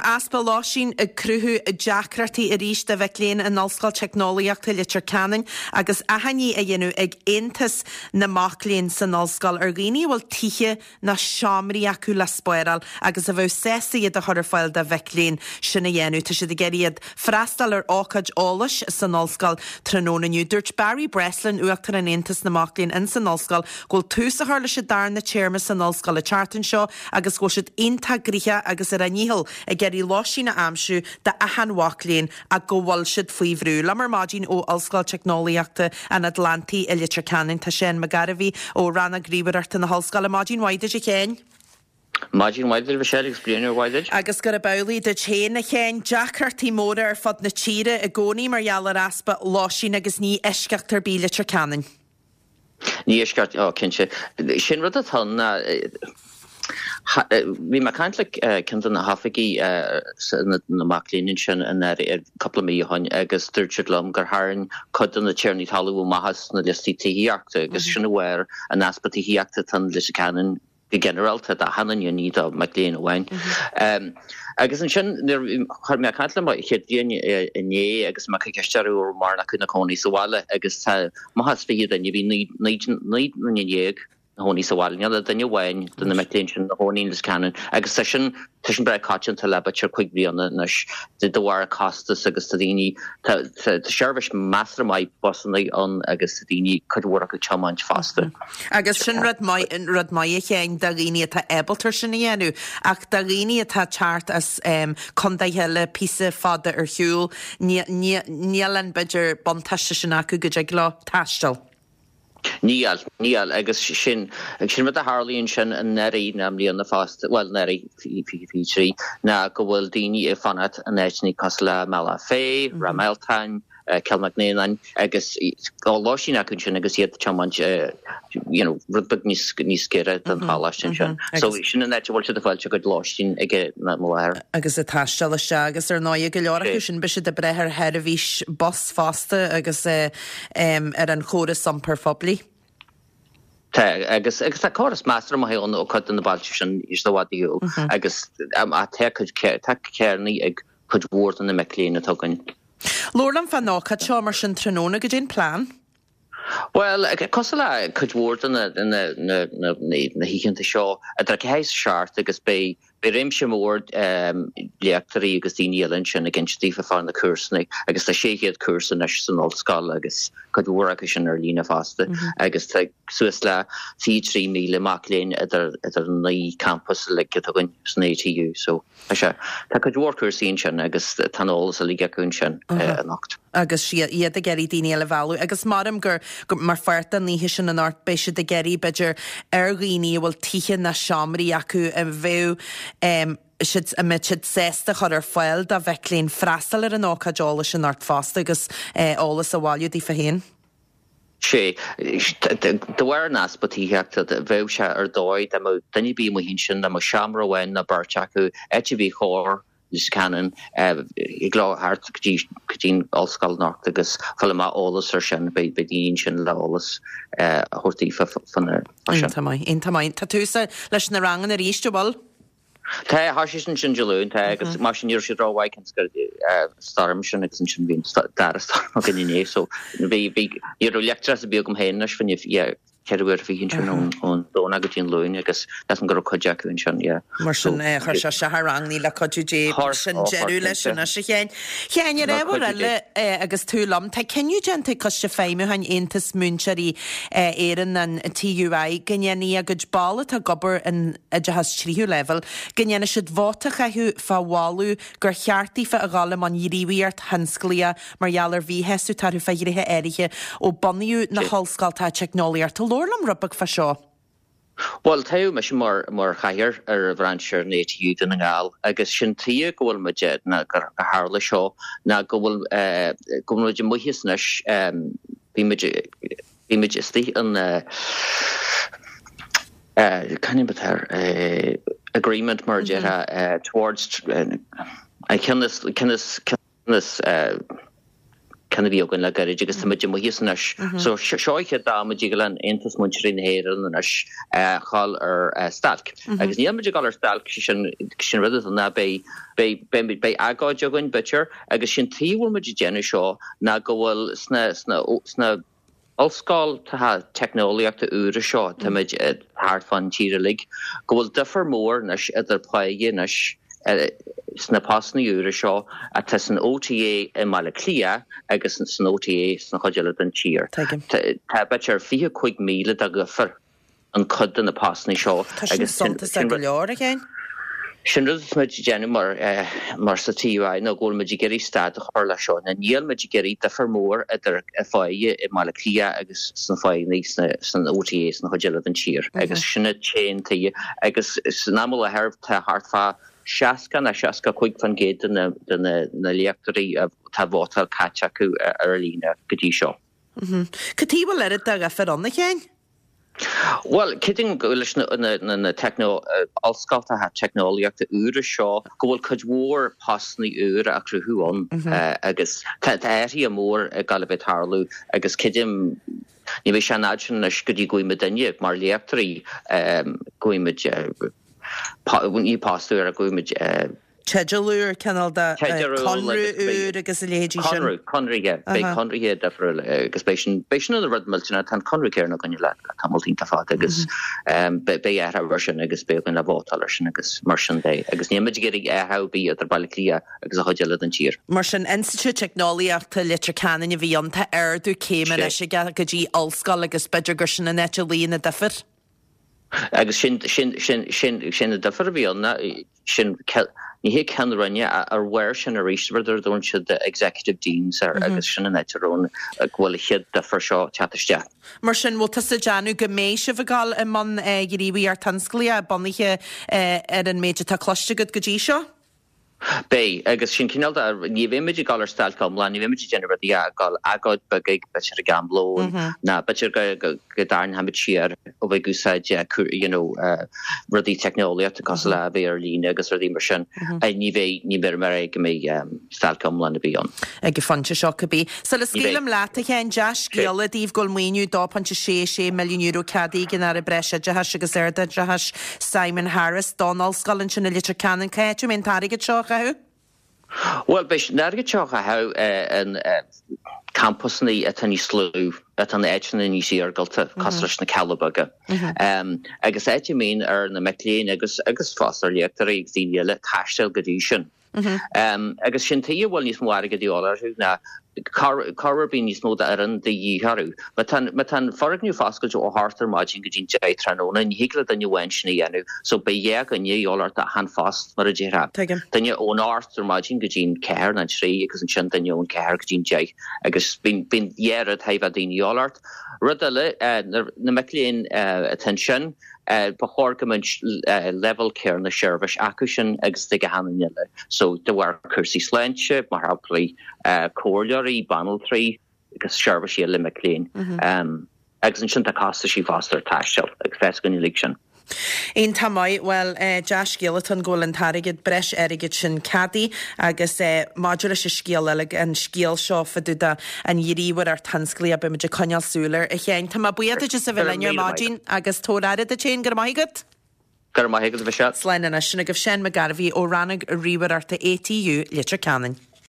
Tá easpa lóistín ag cruthú deacrachtaí arís do mhic léinn in Ollscoil Teicneolaíochta Leitir Ceanainn agus achainí á dhéanamh ag Aontas na Mac Léinn san ollscoil ar dhaoine a bhfuil tithe nó seomraí acu le spáráil agus a bheadh sásta iad a chur ar fáil do mhic léinn sin a dhéanamh. Tá siad ag iarraidh iad freastal ar ócáid eolais san ollscoil tráthnóna inniu. Dúirt Barry Breslin, Uachtarán Aontas na Mac Léinn ins an ollscoil, go bhfuil tús á chur leis an darna téarma san ollscoil an tseachtain seo agus go bhfuil siad iontach gnoitheach agus ar a ndícheall ag iarraidh lóistín a aimsiú d'achan mhac léinn ach go bhfuil siad faoi bhrú. Liom ar maidin ó Ollscoil Teicneolaíochta an Atlantaigh i Leitir Ceanainn tá Seán McGarvey ó Rannóg Ríomhaireachta na hOllscoile. Maidin mhaith duit a Sheáin. Maidin mhaith duit a Mhichelle agus bliain úr mhaith duit. Agus gurb amhlaidh duit féin a Sheáin. Deacrachtaí móra ar fud na tíre i gcónaí mar gheall ar easpa lóistín agus ní eisceacht ar bith Leitir Ceanainn. Ní eisceacht, ó cinnte. Sin rud atá ann ná, bhí mé ag caint le ceann de na hoifigigh na mac léinn ansin anuraidh, cúpla mí ó shin agus dúirt siad liom gur tharraing cuid de na tiarnaí talún amach as na liostaí tithíochta agus sin de bharr an easpa tithíochta atá in Leitir Ceanainn go ginearálta d'achan duine, ní do mhic léinn amháin. Agus ansin nuair a bhí mé ag caint le mo chéad bhliain inné agus mé ag cur ceist orthu an raibh mórán acu ina cónaí sa bhaile agus tá amach as 20 duine, bhí 19 nduine ina chónaí sa bhaile, níl ach duine amháin de na mic léinn sin ina chónaí in Leitir Ceanainn agus tá sin tá sin breá coitianta le b'fhéidir 5 bliana anois de bharr costas agus tá daoine tá seirbhís measartha maith busanna ann agus tá daoine cuid mhór acu ag tiomáint fosta. Agus sin rud maith, rud maith a Sheáin, do dhaoine atá ábalta sin a dhéanamh, ach do dhaoine atá ag teacht as contaetha eile píosa fada ar shiúl, níl an, b'fhéidir, buntáiste sin acu go dtig leo taisteal. Níl, níl, agus sin, sin rud a tharlaíonn sin anuraidh nó i mbliana fosta, bhuel anuraidh, 2023, ná go bhfuil daoine ag fanacht in áiteanna cosúil le Bealach Féich, Ráth Mealtain, Cill Mhic Néanáin agus tá lóistín acu ansin agus iad ag tiomáint you know rud beag níos níos giorra don choláiste ansin. So sin an áit a bhfuil siad ag fáilt a gcuid lóistín ag an am i láthair. Agus ag taisteal isteach agus ar ndóigh go leor acu sin beidh siad ag brath ar sheirbhís bus fosta agus ar an chóras iompair phoiblí. Tá, agus agus tá córas measartha maith ann ó cuid de na bailte sin níos i bhfad ar shiúl agus tá cuid tá carranna ag cuid mhór de na mic léinn atá againn. Labhair liom fán ócáid seo mar sin tráthnóna, goidé an plean? Bhuel, cosúil le cuid mhór de na hoícheanta seo, idir 4 is 7 agus beidh réimse mór léachtóirí agus daoine eile ansin ag inse daofa fá na cúrsanna agus tá 600 cúrsa anois san ollscoil agus cuid mhór acu sin ar líne fosta agus tá suas le 23,000 mac léinn idir an 9 campas uilig atá againn san ATU. So. Tá sé. Tá cuid mhór cúrsaí ansin agus tá an eolas uilig acu ansin anocht. Agus iad ag iarraidh daoine eile a mhealladh agus maram gur, mar pháirt den oíche sin anocht, beidh siad ag iarraidh, b'fhéidir, ar dhaoine a bhfuil tithe ná seomraí acu a bheadh siad, a mbeadh siad sásta a chur ar fáil do mhic léinn freastal ar an ócáid eolais anocht fosta agus eolas a bhailiú daofa féin. Sea. De bharr an easpa tithíochta, bheadh sé ar dóigh dá mbeadh duine ar bith amuigh ansin, dá mbeadh seomra amháin nó beirt acu, áit ar bith chóir Leitir Ceanainn, thig leo theacht go dtí go dtí an ollscoil anocht agus fáil amach eolas ar sin. Beidh daoine ansin le eolas a thabhairt daofa fá sin. Iontach maith, iontach maith. Tá tús leis na ranganna arís, an bhfuil? Tá, thosaigh siad ansin Dé Luain, tá, agus mar sin ní raibh siad rómhaith cionn is go stoirm sin agus ansin bhí an dara storm againn inné so bhí, bhí, ní raibh leictreachas ar bith agam féin anois fá choinne, yeah, 24 uair ansin ón, ón Domhnach go dtí an Luan agus measaim go raibh cuid acu ansin, yeah. Mar sin, chuir sé isteach ar ranganna le cuidiú Dé, sin deireadh leis anois a Sheáin. Sheáin, ar ábhar eile agus tú liom, tá cinneadh déanta ag Coiste Feidhmiúcháin Aontas Múinteoirí Éireann, an TUI, go ndéanfaidh a gcuid ball atá ag obair in oideachas tríú leibhéal, go ndéanfaidh siad vóta a chaitheamh fá mholadh gur cheart daofa a dhul i mbun gníomhaíocht thionsclaíoch mar gheall ar mhíshásamh atá orthu fá ghnéithe áirithe ó bunaíodh na hollscoltacha teicneolaíochta. Labhair liom rud beag fá seo. Bhuel, toghadh mise mar mar chathaoir ar bhrainse an ATU Dún na nGall agus sin tuige go bhfuil muid, ná gur tharla seo, ná go bhfuil go bhfuil muid amuigh as anois, bhí muid, Bhí muid istigh in cén ainm atá air, agreement mar a déarfá towards an ceann is, ceann is, ceann is. Ceann a bhí againn le gairid agus tá muid amuigh as anois. So seo an chéad am a dtig le Aontas Múinteoirí na hÉireann anois dhul ar stailc. Agus níl muid ag dul ar stailc, sé sin, sin rud atá ná beidh, beidh, beidh, beidh agóid againn b'fhéidir agus sin tuige a bhfuil muid ag déanamh seo ná go bhfuil sna, sna, sna ollscoltacha teicneolaíochta úra seo, táimid thart fán tír uilig, go bhfuil difear mór anois idir páighe anois sna postanna úra seo atá san OTA i mBaile Átha Cliath agus san OTA sna chuid eile den tír. Tá b'fhéidir 25,000 de dhifear. an cuid de na postanna seo. Tá sin suntasach go leor, a Sheáin. Sin rud atá muid ag déanamh mar mar sa TUI ná go bhfuil muid ag iarraidh stad a chur leis seo. Ná níl muid ag iarraidh difear mór idir pháighe i mBaile Átha Cliath agus sna pháigheanna sna san OTA sna chuid eile den tír. Agus sin an t-aon tuige. Agus san am i láthair tá thart fá 60 nó 65% de na de na na léachtóirí atá vótáil caite acu ar líne go dtí seo. Cad tuige a bhfuil oiread de dhifear ann, a Sheáin? Bhuel, creidim go leis na ollscoltacha teicneolaíochta úra seo go bhfuil cuid mhór postanna úra á cruthú ann agus tá athruithe mór ag dul a bheith ag tarlú agus creidim ní bheidh sé an fhad sin anois go dtí go bhfaighidh muidinne mar léachtóirí go bhfaighidh muid ní post úr ach go bhfaighidh muid teideal úr, cineál de conradh úr agus a leithéidí sin. Conradh, conraithe, beidh conraithe difriúil agus beidh sin, beidh sin ina rud millteanach, tá an conradh céanna againn le tamall iontach fada agus beidh athrú ar sin agus beidh againn le vótáil ar sin agus mar sin de agus níl muid ag iarraidh athrú ar bith idir Baile Átha Cliath agus an chuid eile den tír. Mar sin, Institiúid Teicneolaíochta Leitir Ceanainn a bhí ann, tá ardú céime anois aige go dtí ollscoil agus b'fhéidir gur sin an áit a luíonn an difear. Agus sin, sin, sin, sin, sin an difear a bhí ann, sin, ní hé ceann roinne, ar bharr sin arís, rud ar a dtugann siad executive deans air agus sin an áit a raibh an, go bhfuil an chéad difear seo ag teacht isteach. Mar sin, bhfuil tusa ag déanamh go mbeidh sibh ag dul i mbun gníomhaíocht thionsclaíoch bunaithe ar an méid atá cloiste agat go dtí seo? Beidh, agus sin cineál de, ní bheidh muid ag dul ar stailc iomlán, ní bheidh muid ag déanamh rudaí ach ag dul agóid beag ag, b'fhéidir ag am lóin, ná b'fhéidir go, go, go dtarraingeoidh muid siar ó bheith ag úsáid you know rudaí teicneolaíochta cosúil le a bheith ar líne agus rudaí mar sin. Ní bheidh, ní bheidh mar é go mbeidh stailc iomlán ar bith ann. Ag an phointe seo cibé. Sula scaoilim leat, a Sheáin, dea-scéala daoibh go bhfuil maoiniú €2.66 milliún ceadaithe ag an Aire Breisoideachais agus Ardoideachais, Simon Harris, don ollscoil ansin i Leitir Ceanainn. Cá háit a mbeidh an t-airgead seo á chaitheamh? Bhuel, beidh an airgead seo á chaitheamh in campusanna atá níos lú, atá in áiteanna níos iargúlta, cosúil leis na Cealla Beaga. Agus áit a mbíonn ar na mic léinn agus agus fosta ar léachtóirí agus daoine eile taisteal go dtí sin. Agus sin tuige a bhfuil níos mó airgid de dhíobháil orthu ná corruair bíonn níos mó d'fhoireann de dhíth orthu. Má tá má tá an foirgneamh foscailte ó hocht ar maidin go dtí'n 10 tráthnóna, ní thig le duine amháin sin a dhéanamh, so beidh dhá dhuine de dhíobháil ort achan phost, mar a déarfá. Tuigim. Duine ón ocht ar maidin go dtí'n ceathair nó an trí agus ansin duine ón ceathair go dtí'n deich agus bíonn bíonn dhá rud thar a bheith daoine de dhíobháil ort. Rud eile, na mic léinn atá ansin, Ba chóir go mbeadh leibhéal céanna seirbhís acu sin agus ag achan duine eile. So de bharr cúrsaí sláinte, mar shampla, comhairleoirí, banaltraí agus seirbhísí eile mic léinn. Agus ansin tá costaisí fosta ar taisteal agus tá a fhios againn uilig sin. Iontach maith. Bhuel, dea-scéal atá ann go bhfuil an t-airgead, breis airgid sin ceadaithe agus maidir leis an scéal eile, an scéal seo fá dtaobh de an ghníomhaireacht thionsclaíoch, beidh muid ag coinneáil súil air, a Sheáin. Tá mé buíoch duit as a bheith linn ar maidin agus tabhair aire duit féin. Go raibh maith agat. Go raibh maith agat, a Mhichelle. Slán anois. Sin agaibh Seán McGarvey ó Rannóg Ríomhaireachta ATU, Leitir Ceanainn.